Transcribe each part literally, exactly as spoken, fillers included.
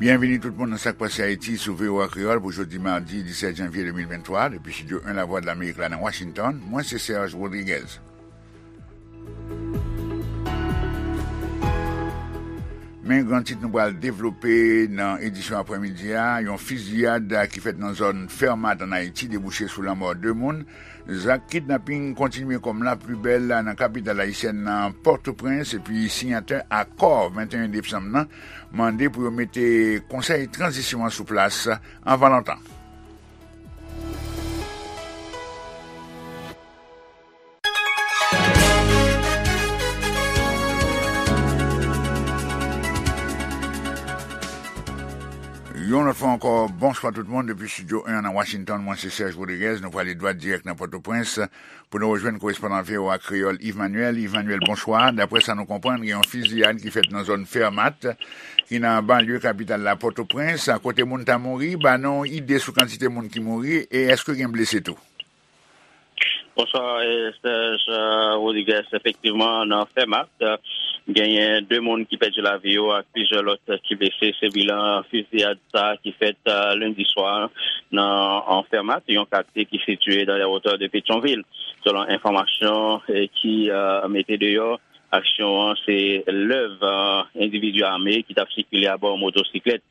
Byenvini tout moun nan Sa k Pase Ayiti sou V O A Kreyòl pou jodi madi disèt janvye de mil venntwa, depi Estidyo en Lavwadlamerik la nan Washington. Mwen se Serge Rodriguez. Men gran tit nou pral devlope nan edisyon aprèmidi a, yon fiziyad ki fèt nan zòn Fèmat ann Ayiti debouche sou lanmò de moun. Zak kidnaping kontinye kòm lapibèl nan kapital ayisyèn nan, Pòtoprens, epi siyatè akò venteyen desanm nan mande pou yo mete konsèy tranzisyon an sou plas anvan lontan. Yon lòt fwa ankò, bonswa tout moun depi Estidyo en nan Washington. Mwen se Serge Rodriguez. Nou prale dwat dirèk nan Pòtoprens pou nou rejwenn korespondan V O A Kreyòl Yves Manuel. Yves Manuel, bonswa. Daprè sa nou konprann, gen yon fiziyad ki fèt nan zòn Fèmat, ki nan banlye kapital la, Pòtoprens, kote moun ta mouri. Ba nou ide sou kantite moun ki mouri e èske gen blese tou? Bonswa, eh, Serge, eh, Rodriguez. Efektivman, nan Fèmat, eh, genyen de moun ki pèdi lavi yo ak plizyè lòt ki blese. Se bilan fiziyad sa a ki fèt, eh, lendi swa nan, an Fèmat, yon katye ki sitiye dans les hauteurs de Pétion-Ville. Selon enfòmasyon, eh, ki, eh, mete deyò, aksyon an se lèv, eh, endividi ame ki t ap sikile abò yon motosiklèt.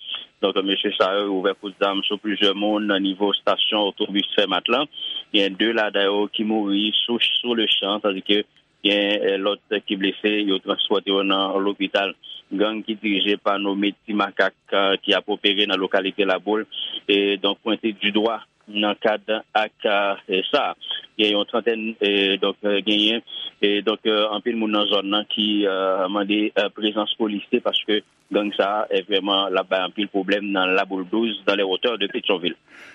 Donk, mesye sa yo ouvè kout zam sou plizyè moun nan nivo estasyon otobis Fèmat lan. Gen de ladan yo ki mouri sou, sou le chan, tandike gen, eh, lòt ki blese, yo transpòte yo nan lopital. Gang ki dirije pa nome Ti Makak, eh, ki ap opere nan lokalite Laboul, e donk pwente di dwa nan kad ak, eh, sa. Gen yon trantèn, eh, donk, eh, genyen, eh, donk, eh, anpil moun nan zòn nan ki, eh, mande, eh, prezans polisye paske gang sa a, eh, vrèman, l ap bay anpil pwoblèm nan Laboul douz, dans les hauteurs de Pétion-Ville.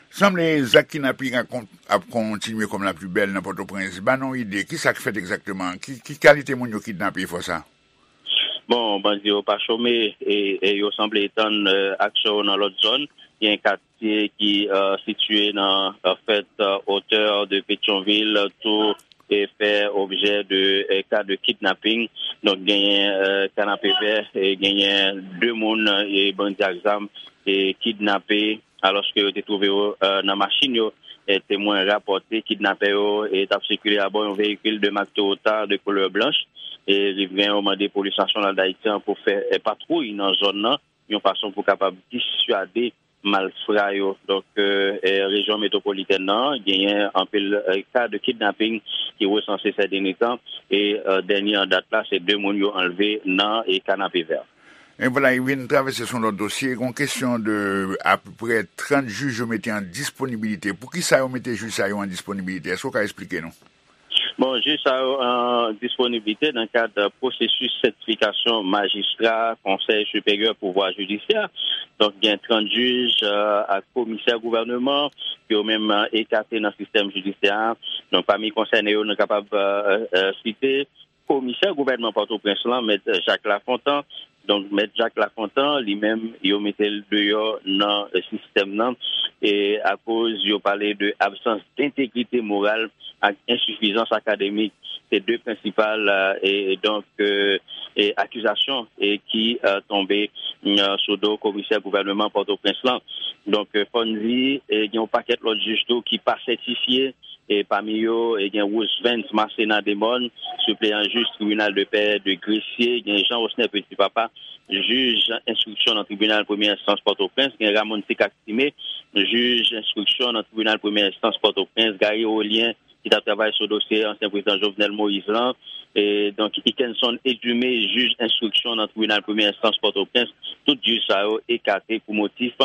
Sanble zak kidnaping ap kon-, ap kontinye kòm lapibèl nan Pòtoprens. Ba nou ide, ki sa k fèt egzakteman? Ki, ki kalite moun yo kidnape fò sa? Bon, bandi yo pa chome, e, e yo sanble etann, eh, aksyon yo nan lòt zòn. Gen katye ki, eh, sitiye nan, an fèt, eh, otè de Petyonvil, tou, e fè objè de, eh, ka de kidnaping. Donk, genyen, eh, Kanapevè, e genyen de moun, e bandi ak zam, e kidnape, alòske yo te twouve yo, eh, nan machin yo. E temwen rapòte kidnapè yo, e t ap sikile abò yon veyikil de mak Toyota de koulè blanch. E rivren yo mande Polis Nasyonal Dayiti an pou fè, eh, patwouy nan zòn nan, yon fason pou kapab diswade malfra yo. Donk, eh, eh, rejyon metwopolitèn nan genyen anpil, eh, ka de kidnaping ki resanse sè dènye tan. E, eh, dènye an dat la, se de moun yo anlve nan, e, Kanapevè. E vwala, li vin travèse sou lòt dosye. Gon kesyon de apeprè trant jij yo mete an disponibilite. Poukisa yo mete jij sa yo an disponibilite? Èske w ka eksplike nou? Bon, jij sa yo an disponibilite nan kad pwosesis sètifikasyon majistra Konsèy Siperyè Pouvwa Jidisyè. Donk, gen trant jij, eh, ak komisè gouvèneman, yo menm, eh, ekate nan sistèm jidisyè a. Donk, pami konsène yo, nou kapab, eh, eh, site komisè gouvènman Pòtoprens lan, Mèt Jacques Lafontant. Donk, Mèt Jacques Lafontant, li menm, yo mete l deyò nan, eh, sistèm nan, e akoz yo pale de absans dentegrite moral ak ensifizans akademik. Se de prensipal, eh, e, e donk, eh, e akizasyon, e ki, eh, tonbe, mm, sou do komisè gouvèneman Pòtoprens lan. Donk, eh, fò n di, eh, gen yon pakèt lòt jij tou ki pa sètifye, e pami yo, e gen Roosevens Marcena Demorne, sipleyan jij tribinal de pè de Gresye, gen Jean Rosner Petit Papa, jij enstriksyon nan tribinal premyè enstans Pòtoprens, gen Ramon Sicacime, jij enstriksyon nan tribinal premyè enstans Pòtoprens, Gary Rolien, ki t ap travay sou dosye ansyen prezidan Jovenel Moïse lan, e donk Ikenson Edumé, jij enstriksyon nan tribinal premyè enstans Pòtoprens, tout jij sa yo ekate pou motif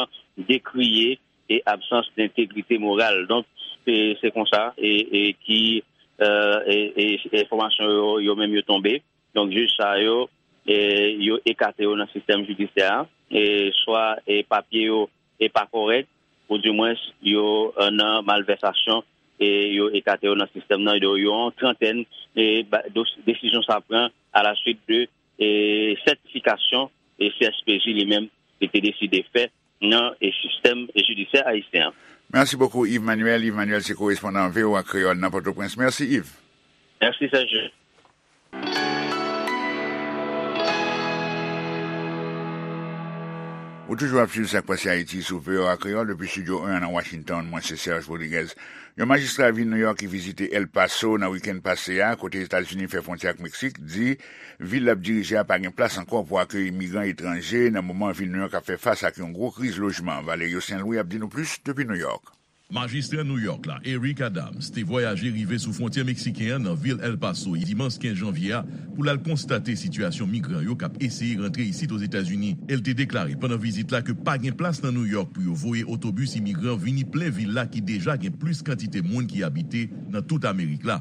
dekriye e absans dentegrite moral. Donk, se, se konsa, e, e ki, eh, e, e, enfòmasyon yo, yo menm yo tonbe. Donk, jij sa yo, e, yo ekate yo nan sistèm jidisyè a, e, swa, e, papye yo, e, pa kòrèk, oudimwens, yo, eh, nan malvèsasyon, e, yo ekate yo nan sistèm nan, yo, yo yon trantèn, e, ba, dos-, desizyon sa pran alaswit de, e, sètifikasyon, e, C S P J li menm, li te deside fè nan, e, sistèm jidisyè ayisyen an. Mèsi bokou, Yves Manuel. Yves Manuel se korespondan V O A Kreyòl nan Pòtoprens. Mèsi, Yves. Mèsi, Serge. Ou toujou ap swiv Sa k Pase Ayiti sou V O A Kreyòl depi Estidyo en an nan Washington. Mwen se Serge Rodriguez. Yon majistra vil New York ki vizite El Paso nan wikenn pase a, kote Etazini fè fwontyè ak Meksik, di vil l ap dirije a pa gen plas ankò pou akeyi imigran etranje nan moman vil New York ap fè fas ak yon gwo kriz lojman. Valerio Saint Louis ap di nou plis depi New York. Majistra New York la, Eric Adams, te vwayaje rive sou fwontyè meksiken an nan vil El Paso dimanch kenz janvye a pou l al konstate sitiyasyon migran yo k ap eseye rantre isit Ozetazini. E l te deklare pandan vizit la ke pa gen plas nan New York pou yo voye otobis imigran vini plen vil la ki deja gen plis kantite moun ki abite nan tout Amerik la.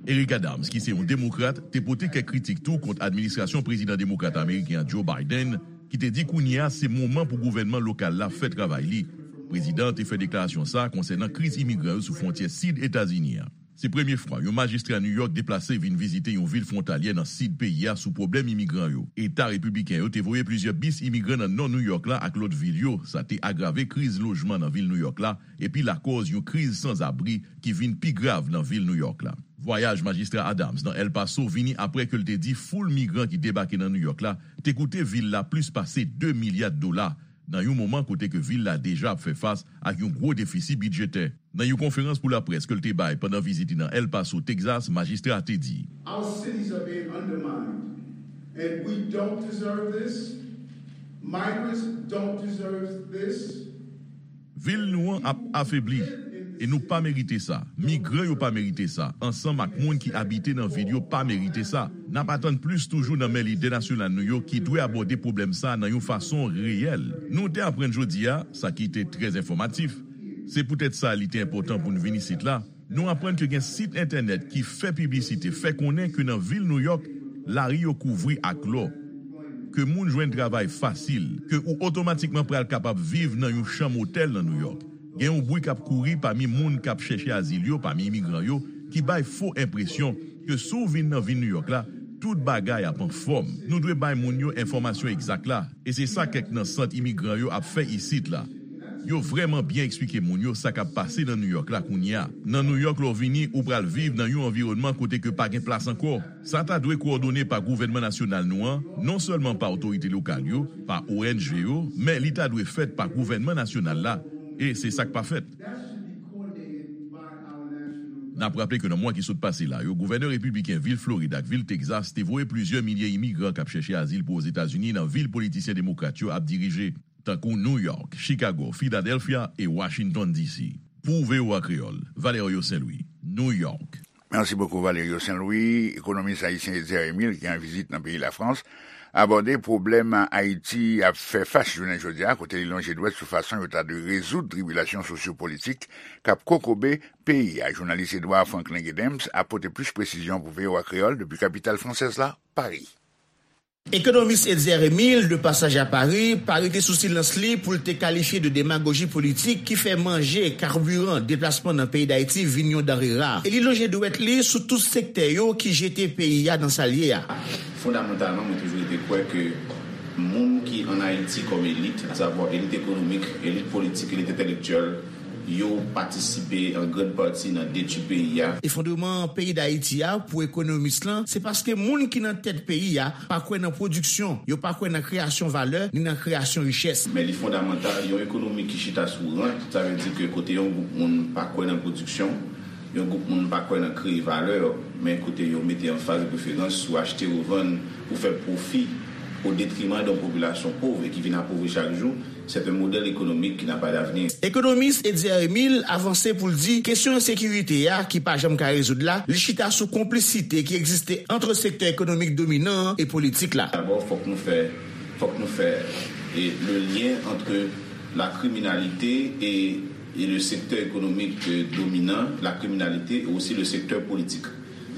Eric Adams, ki se yon demokrat, te pote kèk kritik tou kont administrasyon prezidan demokrat ameriken an Joe Biden, ki te di kounye a se moman pou gouvènman lokal la fè travay li. Prezidan an te fè deklarasyon sa a konsènan kriz imigran yo sou fwontyè sid Etazini an. Se premye fwa yon majistra New York deplase vin vizite yon vil fwontalyè nan sid peyi a sou pwoblèm imigran yo. Eta repibliken yo te voye plizyè bis imigran nan nò New York la ak lòt vil yo. Sa te agrave kriz lojman nan vil New York la, epi lakòz yon kriz sanzabri ki vin pi grav nan vil New York la. Vwayaj majistra Adams nan El Paso vini apre ke l te di foul migran ki debake nan New York la te koute vil la plis pase de milya dola, nan yon moman kote ke vil la deja ap fè fas ak yon gwo defisi bidjetè. Nan yon konferans pou laprès ke l te bay pandan vizit li nan El Paso, Texas, majistra a te di, Our cities are being undermined, and we don't deserve this. Migrants don't deserve this. Vil nou an ap afebli, e nou pa merite sa. Migran yo pa merite sa, ansanm ak moun ki abite nan vil yo pa merite sa. N ap atann plis toujou nan men lidè nasyonal nou yo ki dwe abòde pwoblèm sa a nan yon fason reyèl. Nou te aprann jodi a, sa ki te trè enfòmatif. Se poutèt sa li te enpòtan pou n vin isit la. Nou aprann ke gen sit entènèt ki fè piblisite, fè konnen ke nan vil New York, lari yo kouvri ak lò, ke moun jwenn travay fasil, ke ou otomatikman pral kapab viv nan yon chanm otèl nan New York. Gen yon bri k ap kouri pami moun k ap chèche azil yo, pami imigran yo, ki bay fo enpresyon ke si w vin nan vil New York la, tout bagay ap anfòm. Nou dwe bay moun yo enfòmasyon egzak la, e se sa kèk nan sant imigran yo ap fè isit la. Yo vrèman byen eksplike moun yo sa k ap pase nan New York la kounye a. Nan New York, lè w vini, ou pral viv nan yon anviwònman kote ke pa gen plas ankò. Sa ta dwe kowòdone pa gouvènman nasyonal nou an, non sèlman pa otorite lokal yo, pa O N G yo, men li ta dwe fèt pa gouvènman nasyonal la, e se sa k pa fèt. N ap raple ke nan mwa ki sot pase la yo, gouvènè repibliken vil Florid ak vil Texas te voye plizyè milye imigran k ap chèche azil pou Ozetazini nan vil politisyen demokrat yo ap dirije, tankou New York, Chicago, Philadelphia e Washington D C. Pou V O A Kreyòl, Valerio Saint Louis, New York. Merci beaucoup, Valerio Saint Louis. Ekonomis ayisyen Etzer Emile, ki an vizit nan peyi Lafrans, abòde pwoblèm Ayiti ap fè fas jounen jodi a, kote li lonje dwèt sou fason yo ta dwe rezoud tribilasyon sosyopolitik k ap kokobe peyi a. Jounalis Edouard Franklin Gedems ap pote plis presizyon pou V O A Kreyòl depi kapital fransèz la, Paris. Ekonomis Etzer Emile, de pasaj a Pari, pa rete sou silans li pou l te kalifye de demagoji politik ki fè manje kabiran deplasman nan peyi Dayiti vin yon danre ra. E li lonje dwèt li sou tout sektè yo ki jete peyi a nan sa l ye a. Fondamantalman, mwen toujou rete kwè ke moun ki ann Ayiti kòm elit, asavwa elit ekonomik, elit politik, elit entèlektyèl, yo patisipe an grann pati nan detwi peyi a. Efondreman peyi Dayiti a, pou ekonomis lan, se paske moun ki nan tèt peyi a pa kwè nan pwodiksyon, yo pa kwè nan kreyasyon valè, ni nan kreyasyon richès. Men li fondamantal, yon ekonomi ki chita sou rant, sa vle di ke kote yon gwoup moun pa kwè nan pwodiksyon, yon gwoup moun pa kwè nan kreye valè, men kote yo mete anfaz de preferans sou achte, revann, pou fè pwofi, o detriman de yon popilasyon pòv e ki vin apovri chak jou, c'est un modèle économique qui n'a pas d'avenir. Ekonomis Etzer Emile avanse pou l di kesyon ensekirite a ki pa janm ka rezoud la, li chita sou konplisite ki egziste ant sektè ekonomik dominan an e politik la. D'abord, fòk nou fè, fòk nou fè, e, le lien entre la criminalité et, et le secteur économique, euh, dominant, la criminalité et aussi le secteur politique.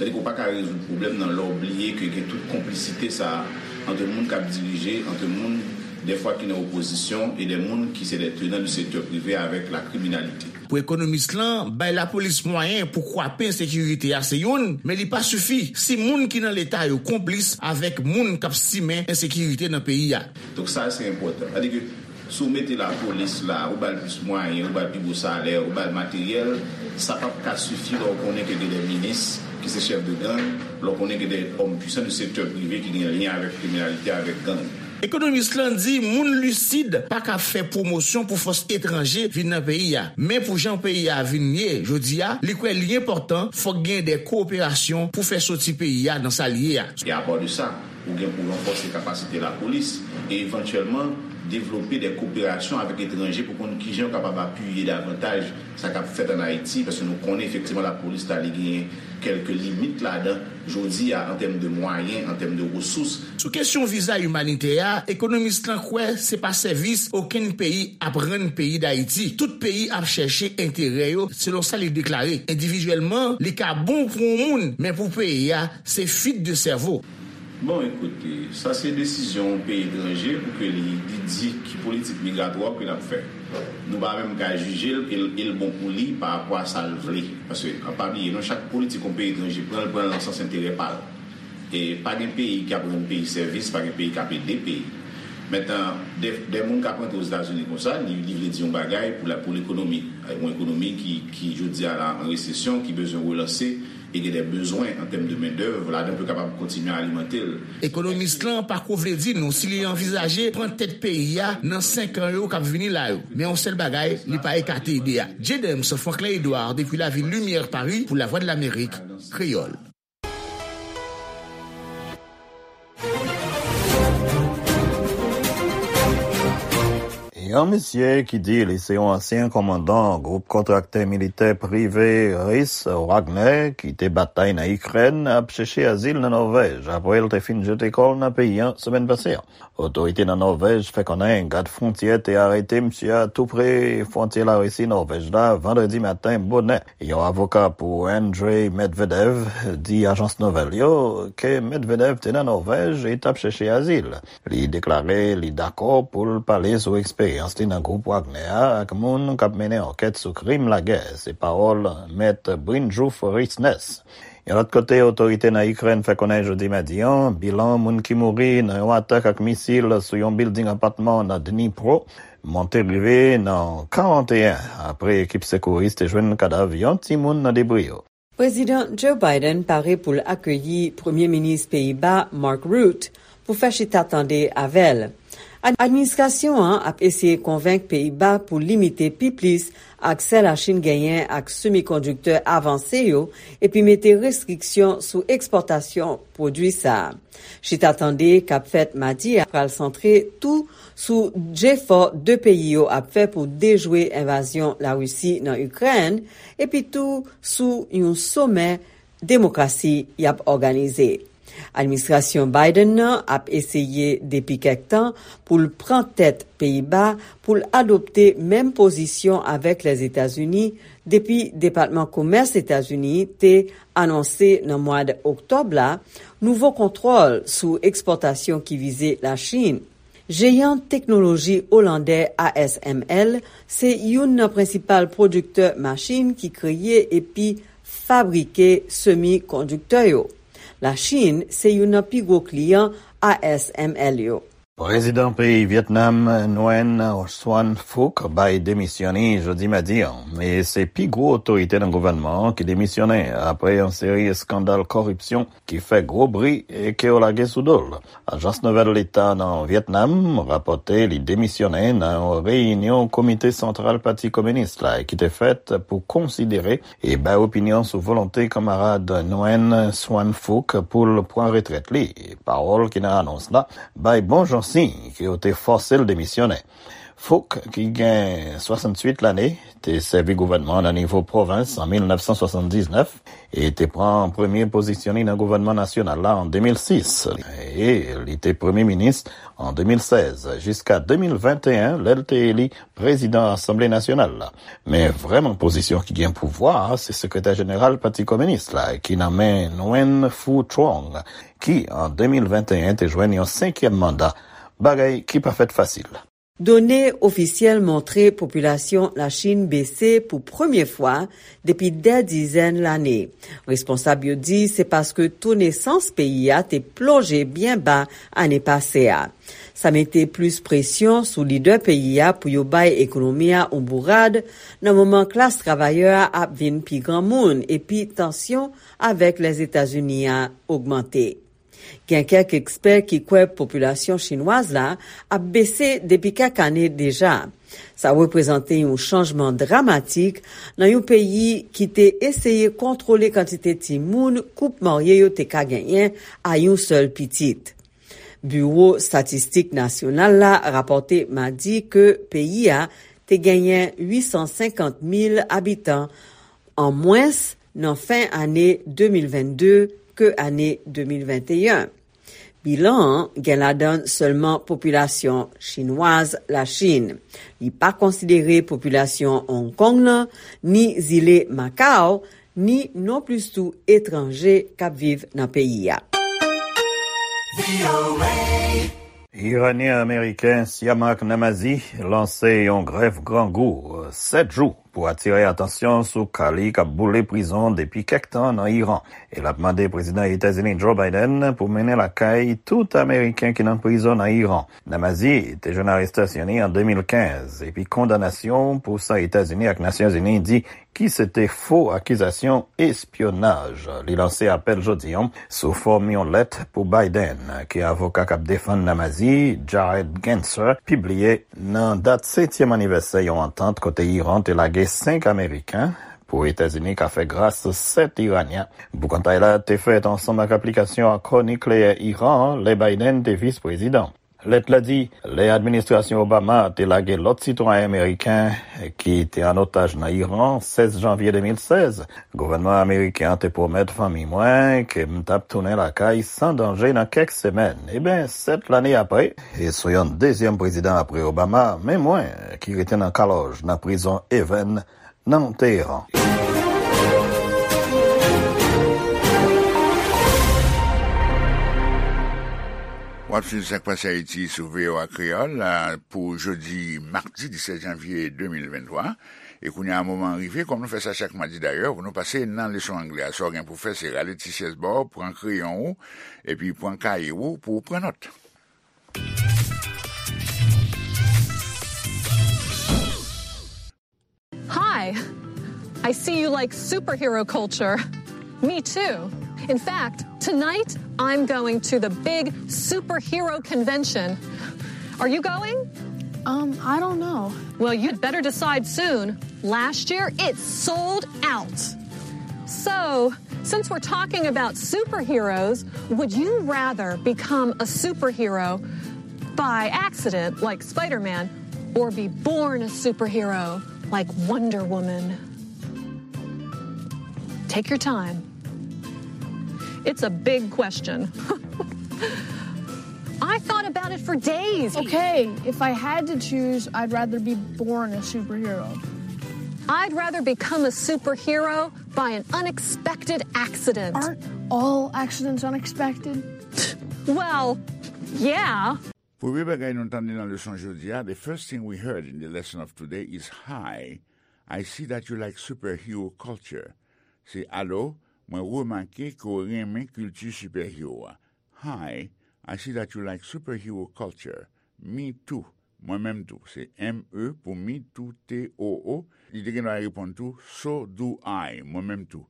Sètadi ke w pa ka rezoud pwoblèm nan lè w bliye ke gen tout konplisite sa a ant moun k ap dirije, ant moun dèfwa ki nan opozisyon e de moun ki se de tenan du sektè prive avèk la kriminalite. Pou ekonomis lan, bay lapolis mwayen pou kwape ensekirite a se youn, men li pa sifi si moun ki nan Leta yo konplis avèk moun k ap simen ensekirite nan peyi a. Donk sa se enpòtan. Sètadi ke si w mete lapolis la, ou ba l plis mwayen, ou ba l pi gwo salè, ou ba l materyèl, sa p ap ka sifi lè w konnen ke gen de minis ki se chèf de gang, lè w konnen gen de òm pwisan de sektè prive ki gen lyen avèk kriminalite, avèk gang. Ekonomis lan di moun lisid pa ka fè pwomosyon pou fòs etranje vin nan peyi a. Men pou jan peyi a vin ye jodi a, li kwè li enpòtan fòk gen de kowoperasyon pou fè soti peyi a nan sa l ye a. E apò de sa, ou gen pou ranfòse kapasite lapolis e evantyèlman devlope de kowoperasyon avèk etranje pou konn kijan yo kapab apiye davantaj sa k ap fèt ann Ayiti, paske nou konnen efektivman lapolis la li genyen kèlke limit ladan jodi a an tèm de mwayen, an tèm de resous. Sou kesyon viza imanitè a, ekonomis lan kwè se pa sèvis okenn peyi ap rann peyi Dayiti. Tout peyi ap chèche enterè yo, selon sa li deklare. Endividyèlman, li ka bon pou yon moun, men pou peyi a, se fwit de sèvo. Bon, ekoute, sa se desizyon yon peyi etranje pou ke li, li di ki politik migratwa ke l ap fè. Nou pa menm ka jije l e l, e l bon pou li pa rapò a sa l vle. Paske, an pa bliye, non, chak politik yon peyi etranje pran, l pran l nan sans enterè pa l. E pa gen peyi k ap rann peyi sèvis, pa gen peyi k ap ede peyi. Mentnan, de, de moun k ap rantre Ozetazini konsa, li, li vle di yon bagay pou la, pou lekonomi. Yon ekonomi ki, ki jodi a la an resesyon, ki bezwen relanse, e gen de bezwen an tèm de mendèv, ladan pou yo kapab kontinye alimante l. Ekonomis lan pa ko vle di nou si li anvizaje pran tèt peyi a nan senk an yo k ap vini la yo. Men yon sèl bagay, li pa ekate ide a. James Franklin Edouard depi lavil Limyè, Pari, pou Lavwadlamerik, Kreyòl. Yon misye ki di li se yon ansyen kòmandan gwoup kontraktè militè prive ris Wagner ki te batay nan Ikrèn ap chèche azil nan Nòvèj apre l te fin jete kò l nan peyi a semèn pase a. Otorite nan Nòvèj fè konnen gad fwontyè te arete misye a tou pre fwontyè Larisi Nòvèj la vandredi maten bonè. Yon avoka pou Andrei Medvedev di ajans nouvèl yo ke Medvedev te nan Nòvèj e t ap chèche azil. Li deklare li dakò pou l pale sou eksperyans li nan gwoup Wagner a ak moun k ap mennen ankèt sou krim lagè, se pawòl Mèt Brynjulf Riksnes. Yon lòt kote, otorite nan Ikrèn fè konnen jodi madi an, bilan moun ki mouri nan yon atak ak misil sou yon bilding apatman nan Dnipro monte rive nan karanteyen apre ekip sekouris te jwenn kadav yon timoun nan debri yo. Prezidan Joe Biden pare pou l akeyi Premye Minis Peyiba Mark Rutte pou fè chita tande avè l. Ad-, administrasyon an ap eseye konvenk Peyiba pou limite pi plis aksè Lachin genyen ak semikondiktè avanse yo epi mete restriksyon sou ekspòtasyon pwodui sa a. Chita tande k ap fèt madi a pral santre tou sou jefò de peyi yo ap fè pou dejwe envazyon Larisi nan Ikrèn, epi tou sou yon somè demokrasi y ap òganize. Administrasyon Biden nan ap eseye depi kèk tan pou l pran tèt Peyiba pou l adopte menm pozisyon avèk Lèzetazini depi Depatman Komès Etazini te anonse nan mwa oktòb la nouvo kontwòl sou ekspòtasyon ki vize Lachin. Jeyan teknoloji olandè A S M L se youn nan prensipal pwodiktè machin ki kreye epi fabrike semikondiktè yo. Lachin se youn nan pi gwo kliyan A S M L yo. Prezidan peyi Vyetnam, Nguyen Xuan Phuc, bay demisyon li jodi madi an, e se pi gwo otorite nan gouvènman an ki demisyonnen apre yon seri eskandal kòripsyon ki fè gwo bri e ke yo lage sou do l. Ajans nouvèl leta nan Vyetnam rapòte li demisyonnen nan yon reyinyon Komite Santral Pati Kominis la ki te fèt pou konsidere e bay opinyon sou volonte kanmarad Nguyen Xuan Phuc pou l pran retrèt li. Pawòl ki nan anons la bay bon jan siy ke yo te fòse l demisyonnen. Phuc, ki gen swasanntuit lane, te sèvi gouvènman nan nivo pwovens an mil nèf san swasanndiznèf e te pran premye pozisyon li nan gouvènman nasyonal la an de mil sis, e li te premye minis an de mil sèz, jiska de mil venteyen, lè l te eli prezidan Asanble Nasyonal la. Men vrèman pozisyon ki gen pouvwa a, se sekretè jeneral Pati Kominis la, ki nan men Nguyen Phu Trong, ki an de mil venteyen te jwenn yon senkyèm manda, bagay ki pa fèt fasil. Done ofisyèl montre popilasyon Lachin bese pou premye fwa depi dè dizèn lane. Responsab yo di se paske to nesans peyi a te plonje byen ba ane pase a. Sa mete plis presyon sou lidè peyi a pou yo bay ekonomi a yon bourad nan moman klas travayè a ap vin pi granmoun epi tansyon avèk Lèzetazini a ogmante. Gen kèk ekspè ki kwè popilasyon chinwaz la ap bese depi kèk ane deja. Sa reprezante yon chanjman dramatik nan yon peyi ki te eseye kontwole kantite timoun koup marye yo te ka genyen a yon sèl pitit. Biwo Estatistik Nasyonal la rapòte madi ke peyi a te genyen uit san senkant mil abitan an mwens nan fen ane de mil vennde ke ane de mil venteyen. Bilan an gen ladan sèlman popilasyon chinwaz Lachin. Li pa konsidere popilasyon Hong Kong nan, ni zile Macau, ni nonplis tou etranje k ap viv nan peyi a. Iranyen Ameriken Siamak Namazi lanse yon grèv grangou sèt jou pou atire atansyon sou ka li k ap boule prizon depi kèk tan nan Iran. E l ap mande Prezidan Etazini Joe Biden pou mennen lakay tout Ameriken ki nan prizon nan Iran. Namazi te jwenn arestasyon li an de mil kenz, epi kondanasyon pou sa Etazini ak Nasyonzini di ki se te fo akizasyon espyonaj. Li lanse apèl jodi an sou fòm yon lèt pou Biden, ke avoka k ap defann Namazi, Jared Genser, pibliye nan dat setyèm anivèsè yon antant kote Iran te lage senk Ameriken pou Etazini ka fè gras sèt Iranyen. Boukantay la te fèt ansanm ak aplikasyon akò nikleyè Iran an lè Biden te vis prezidan. Lèt la di, lè administrasyon Obama te lage lòt sitwayen ameriken ki te an otaj nan Iran, sèz janvye de mil sèz, gouvènman ameriken an te pwomèt fanmi mwen ke m t ap tounen lakay san danje nan kèk semèn. Eben, sèt lane apre, e sou yon dezyèm prezidan apre Obama, men mwen ki rete nan kalòj nan prizon Evin nan Teheran. W ap swiv Sa k Pase Ayiti sou V O A Kreyòl, a, pou jodi madi disèt janvye de mil venntwa. E kounye a, moman an rive, kòm nou fè sa chak madi dayè, pou nou pase nan leson anglè a. Sa w gen pou fè, se rale ti syèz ba w, pran kreyon ou, epi pran kaye ou pou w pran nòt. Hi! I see you like superhero culture. Me too. In fact, tonight I'm going to the big superhero convention. Are you going? Um, I don't know. Well, you'd better decide soon. Last year, it sold out. So, since we're talking about superheroes, would you rather become a superhero by accident, like Spider Man, or be born a superhero, like Wonder Woman? Take your time. It's a big question. I thought about it for days. Okay, if I had to choose, I'd rather be born a superhero. I'd rather become a superhero by an unexpected accident. Aren't all accidents unexpected? Well, yeah. Premye bagay nou tande nan leson jodi a, the first thing we heard in the lesson of today is, "Hi, I see that you like superhero culture." Se, "Alo, mwen remake ke w renmen kilti sipèhero a." "Hi, I see that you like superhero culture." "Me too." Mwen menm tou. Se M E pou me too, T O O. Li te gen dwa reponn tou, "So do I." Mwen menm tou.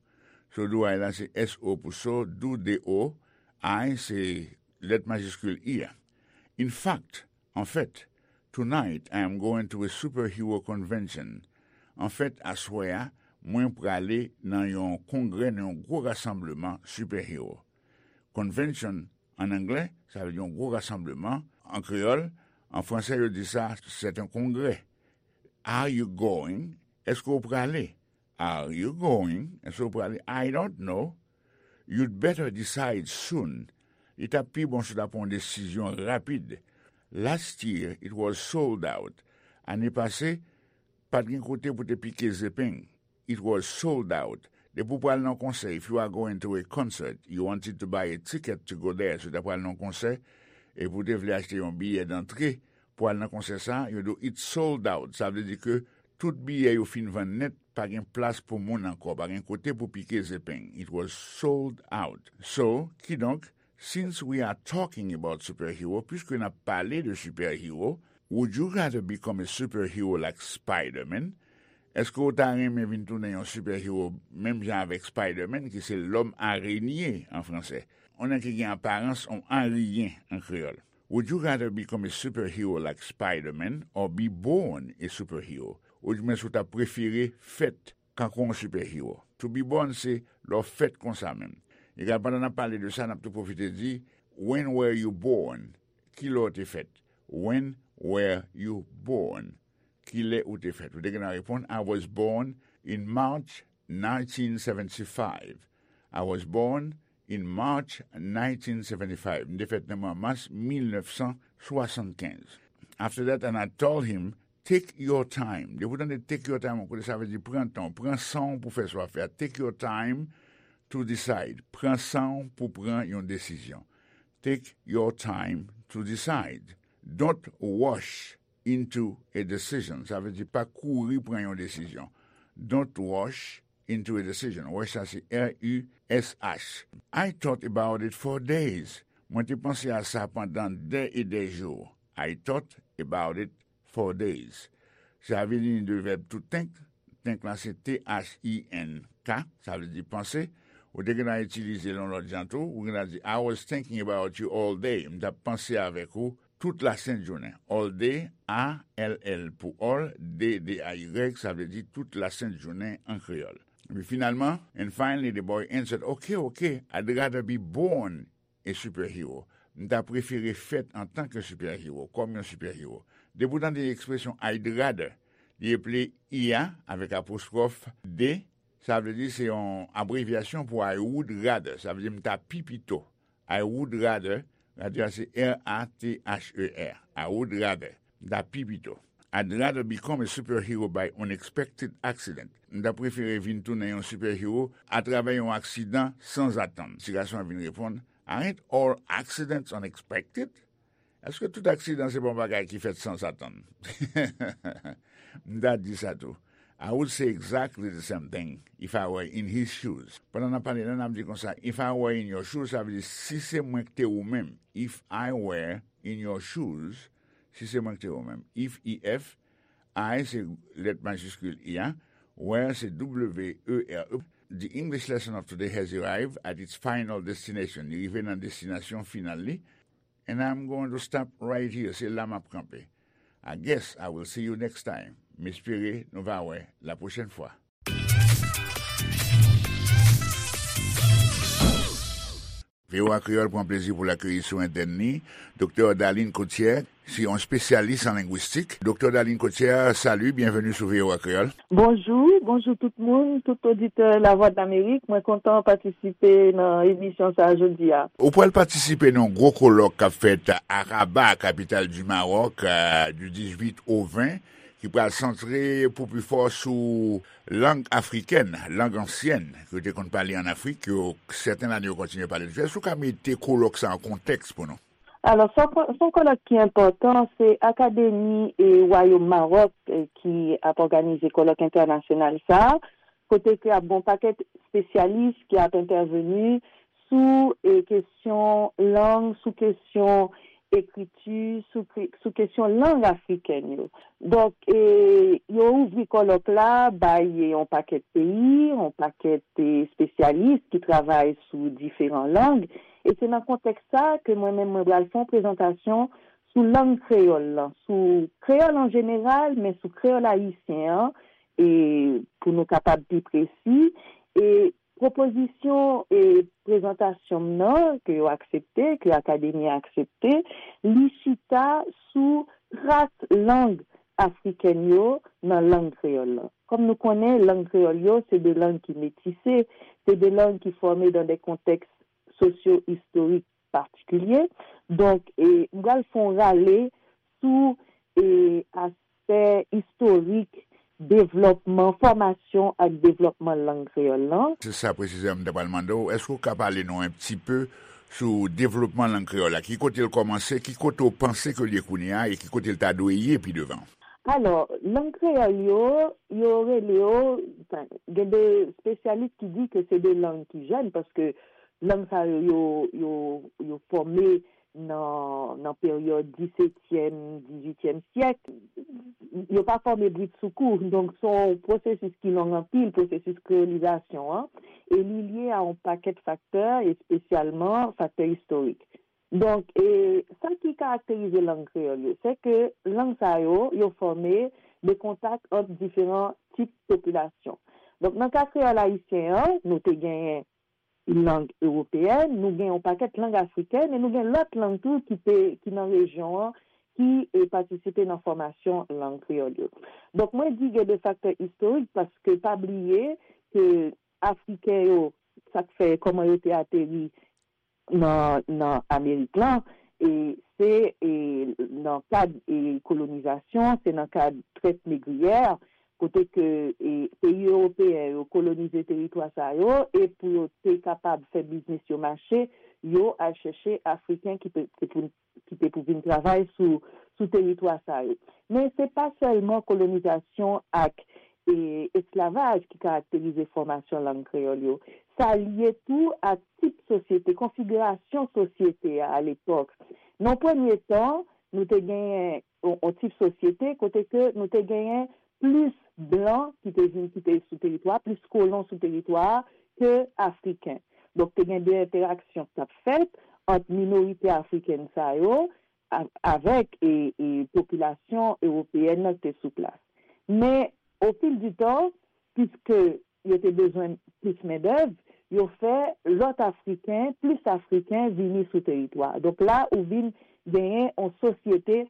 "So do I" la se S O pou so, do, D O, I se lèt majiskil I a. "In fact," anfèt, "tonight I am going to a superhero convention." Anfèt, aswè a, mwen prale nan yon kongrè, nan yon gwo rasanbleman sipèhero. Convention, an anglè, sa vle di yon gwo rasanbleman. An kreyòl, an fransè, yo di sa, c'est un congrès. Are you going? Èske w prale? Are you going? Èske w prale? I don't know. You'd better decide soon. Li t ap pi bon si w ta pran yon desizyon rapid. Last year, it was sold out. Ane pase, pa t gen kote pou te pike zepeng. It was sold out. Depi w pral nan konsè, if you are going to a concert, you wanted to buy a ticket to go there, si w ta pral nan konsè, epi w te vle achte yon biyè dantre pou al nan konsè sa, yo di w, "It's sold out." Sa vle di ke tout biyè yo fin vann nèt, pa gen plas pou moun ankò, pa gen kote pou pike zepeng. It was sold out. So, kidonk, since we are talking about superhero, piske n ap pale de sipèhero, would you rather become a superhero like Spider-Man? Èske w ta renmen vin tounen yon sipèhero menm jan avèk Spider-Man, ki se lòm arenye an fransè? yon nèg ki gen aparans yon ariyen an kreyòl. Would you rather become a superhero like Spider-Man or be born a superhero? Oudimwens, ou ta prefere fèt kankou yon sipèhiwo? To be born se lè w fèt konsa menm. Egal, pandan n ap pale de sa, n ap tou pwofite di, when were you born? Kilè w te fèt? When were you born? Kilè ou te fèt? Ou te gen nan reponn, I was born in March nineteen seventy-five. I was born in March nineteen seventy-five. M te fèt nan mwa mas mil nèf san swasannkenz. After that, and I told him, take your time. Depi w tande take your time, yon kote sa vle di pran tan w, pran san w pou fè sa w ap fè a. Take your time to decide. Pran san w pou pran yon desizyon. Take your time to decide. Don't rush into a decision. Sa vle di pa kouri pran yon desizyon. Don't rush into a decision. Rush sa se R U S H. I thought about it for days. Mwen te panse a sa pandan dè e dè jou. I thought about it for days. Sa vini de vèb to think. Think la se T H I N K. Sa vle di panse. Ou te gen a itilize l yon lòt jan tou. Ou gen a di, I was thinking about you all day. M t ap panse avèk ou tout lasent jounen. All day, A L L pou all, day, D A Y, sa vle di tout lasent jounen an kreyòl. Epi finalman, and finally the boy answered, okay, okay, I'd rather be born a superhero. M ta prefere fèt antanke sipèhiwo, kòm yon sipèhiwo. Depi w tande ekspresyon I'd rather, li eple I a avèk apostwòf D, sa vle di se yon abrevyasyon pou I would rather, sa vle di m ta pi pito. I would rather, rather se R A T H E R. I would rather, m ta pi pito. I'd rather become a superhero by unexpected accident. M ta prefere vin tounen yon sipèhiwo atravè yon aksidan sanzatann. Ti gason an vin reponn, aren't all accidents unexpected? Èske tout aksidan se pa yon bagay ki fèt sanzatann? M ta di sa tou. I would say exactly the same thing if I were in his shoes. Pandan n ap pale la, n ap di konsa, if I were in your shoes, sa vle di si se mwen ki te ou menm. If I were in your shoes, si se mwen ki te ou menm. If, E F, I se lèt majiskil I a, where se W E R E. The English lesson of today has arrived at its final destination. Li rive nan destinasyon final li. And I'm going to stop right here. Se la m ap kanpe. I guess I will see you next time. M espere nou va wè la pwochèn fwa. V O A Kreyòl pran plezi pou l akeyi sou antèn li Doktè Darline Cotière, se yon espesyalis an lengwistik. Doktè Darline Cotière, salut, bienvenue sou V O A Kreyòl. Bonjou, bonjou tout moun, tout oditè Lavwadlamerik. Mwen kontan patisipe nan emisyon sa a jodi a. Ou pral patisipe nan yon gwo kolòk k ap fèt a Rabat, kapital di Mawòk, euh, du dizuit au ven, ki pral santre pou pi fò sou lang afrikèn, lang ansyèn, ke yo te konn pale ann Afrik, ke sèten lane yo kontinye pale l toujou. Èske w ka mete kolòk sa an kontèks pou nou? Alò, se yon ko-, se yon kolòk ki enpòtan, se Akademi e Wayòm Mawòk, eh, ki ap òganize kolòk entènasyonal sa a, kote ke ap gen yon pakèt espesyalis ki ap entèveni sou, eh, kesyon lang, sou kesyon ekriti, sou kri-, sou kesyon lang afrikèn yo. Donk, eh, yo ouvri kolòk la bay yon pakèt peyi, yon pakèt, eh, espesyalis ki travay sou diferan lang. E se nan kontèks sa a ke mwen menm mwen pral fè yon prezantasyon sou lang kreyòl lan, sou kreyòl an jeneral, men sou kreyòl ayisyen an, e pou nou kapab pi presi, e pwopozisyon e prezantasyon m nan, ke yo aksepte, ke Akademi a aksepte, li chita sou tras lang afrikèn yo nan lang kreyòl lan. Kòm nou konnen, lang kreyòl yo, se de lang ki metise, se de lang ki fòme dan de kontèks sosyo-istorik patikilye. Donk, e, m pral fè yon rale sou, e, aspè istorik devlòpman, fòmasyon ak devlòpman lang kreyòl lan. Se sa presizeman m ta pral mande w. Èske w ka pale nou un petit peu sou devlòpman lang kreyòl la? Ki kote l kòmanse? Ki kote w panse ke l ye kounye a? E ki kote l ta dwe ye pi devan? Alò, lang kreyòl yo, yo rele yo, anfen, gen de espesyalis ki di ke se de lang ki jèn, paske lang sa yo, yo, yo, yo fòme nan, nan peryòd disetyèm, dizuityèm syèk. Yo pa fòme bridsoukou. Donk, se yon pwosesis ki long anpil, pwosesis kreyolizasyon an. e li lye a yon pakèt faktè, espesyalman faktè istorik. Donk, e, sa ki karakterize lang kreyòl yo, se ke lang sa yo, yo fòme de kontak ant diferan tip popilasyon. Donk, nan ka kreyòl ayisyen an, nou te genyen lang ewopeyèn, nou gen yon pakèt lang afrikèn, e nou gen lòt lang tou ki te, ki nan rejyon an, ki, e, patisipe nan fòmasyon lang kreyòl yo. Donk, mwen di gen de faktè istorik, paske pa bliye ke Afriken yo, sa k fè kòman yo te ateri nan, nan Amerik lan, e se, e, nan kad, e, kolonizasyon, se nan kad trèt negriyè, kote ke, e, peyi ewopeyen yo kolonize teritwa sa yo, e pou yo te kapab fè biznis yo mache, yo al chèche Afriken ki te, te pou, ki te pou vin travay sou, sou teritwa sa yo. Men se pa sèlman kolonizasyon ak, e, esklavaj ki karakterize fòmasyon lang kreyòl yo. Sa lye tou ak tip sosyete, konfigirasyon sosyete a, a lepòk. Nan premye tan, nou te genyen yon, yon tip sosyete kote ke nou te genyen plis blan ki te vin, ki te sou teritwa, plis kolon sou teritwa ke Afriken. Donk, te gen de entèraksyon k t ap fèt ant minorite afrikèn sa yo a, avèk, e, e popilasyon ewopeyèn nan ki te sou plas. Men, o fil di tan, piske yo te bezwen plis mendèv, yo fè lòt Afriken, plis Afriken vini sou teritwa. Donk la, ou vin genyen yon sosyete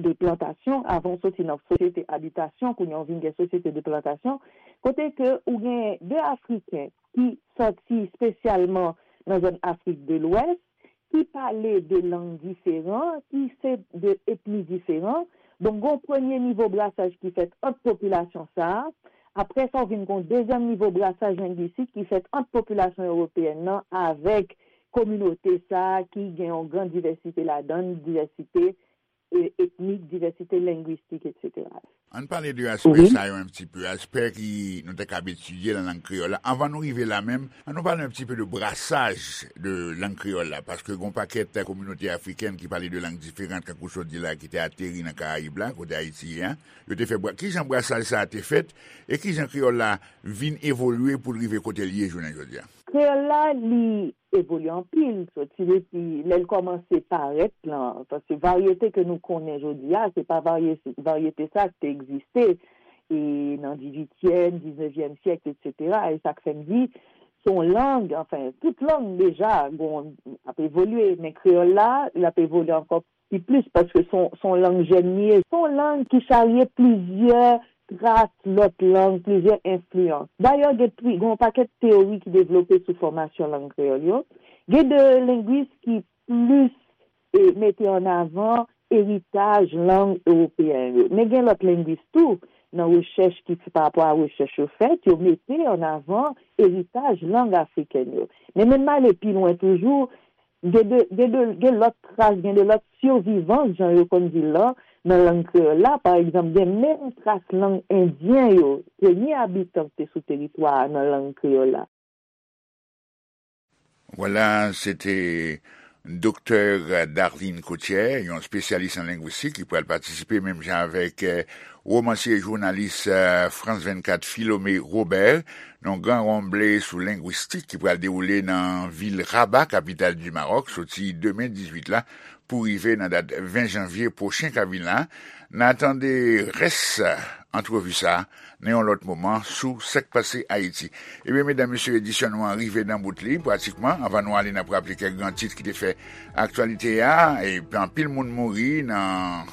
de plantasyon, avan w soti nan sosyete abitasyon, kounye a w vin gen sosyete de plantasyon, kote ke ou gen de Afriken ki soti espesyalman nan zòn Afrik de Lwès, ki pale de lang diferan, ki se de etni diferan. Donk, gen yon premye nivo brasaj ki fèt ant popilasyon sa a. Apre sa, w vin gen yon dezyèm nivo brasaj lengwistik ki fèt ant popilasyon ewopeyèn nan avèk kominote sa a ki gen yon gran divèsite ladan l, divèsite, e, etnik, divèsite lengwistik, etsetera. Ann pale de aspè Wi. Sa yo un petit peu, aspè ki nou ta kab etidye nan lang kreyòl la. Anvan nou rive la menm, ann nou pale un petit peu de brasaj de lang kreyòl la, paske gen yon pakèt kominote afrikèn ki pale de lang diferan, kankou w sot di la, ki te ateri nan Karayib la, kote Ayiti ye a. Yo te fè bra-, kijan brasaj sa a te fèt, e kijan kreyòl la vin evolye pou l rive kote l ye jounen jodi a? Kreyòl la, li evolye anpil, soti depi lè l kòmanse parèt lan, paske varyete ke nou konnen jodi a, se pa varye-, varyete sa ki te egziste, e nan dizuityèm, diznevyèm syèk, etsetera. E sa k fè m di, se yon lang, anfen, tout lang deja, bon, ap evolye, men kreyòl la, l ap evolye ankò pi plis, paske se yon, se yon lang jèn li ye. Se yon lang ki charye plizyè tras lòt lang, plizyè enfliyans. Dayè, gen tri-, gen yon pakèt teyori ki devlope sou fòmasyon lang kreyòl yo. Gen de lengwis ki plis, e, mete an avan eritaj lang ewopeyen yo. Men gen lòt lengwis tou, nan rechèch ki, pa rapò a rechèch yo fèt, yo mete an avan eritaj lang afrikèn yo. Men menm ale pi lwen toujou, gen de, gen de, gen lòt tras, gen de lòt sivivans, jan yo konn di l lan, nan lang kreyòl la. Pa egzanp, gen menm tras lang endyen yo, premye abitan ki te sou teritwa a nan lang kreyòl la. Vwala, se te Doktè Darline Coutière, yon espesyalis an lengwistik ki pral patisipe menm jan avèk, eh, womansye e jounalis, eh, France vennkat Philomé Robert, nan yon gran ranble sou lengwistik ki pral dewoule nan vil Rabat, kapital di Mawòk, soti demen dizuit la pou rive nan dat ven janvye pwochen k ap vin la. N a tande rès antrevi sa a nan yon lòt moman sou sa k pase Ayiti. Ebyen, medam, mesye, edisyon nou an rive nan bout li, pratikman. Anvan nou ale, n ap raple kèk gran tit ki te fè aktyalite a. E anpil moun mouri nan,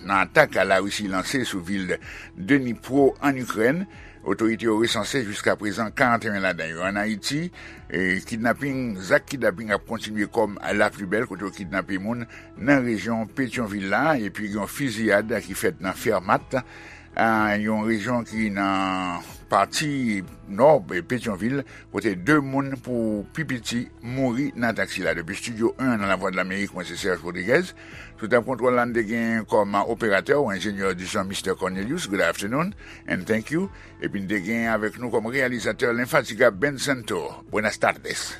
nan atak Larisi lanse sou vil Dnipro, an Ikrèn. Otorite yo resanse jiska prezan karanteyen ladan yo. An Ayiti, e, kidnaping, zak kidnaping ap kontinye kòm la pli bèl, kote yo kidnape moun nan rejyon Petyonvil la, epi gen yon fiziyad ki fèt nan Fèmat, a, yon rejyon ki nan pati nò Petyonvil, kote de moun pou pi piti mouri nan atak sila. Depi Estidyo en nan Lavwadlamerik, mwen se Serge Rodriguez. Sou tab kontwòl la, n te gen kòm operatè ou enjenyè di son, Mister Cornelius. Good afternoon and thank you. Epi n te gen avèk nou kòm reyalizatè lenfatigab Ben Santo. Buenas tardes.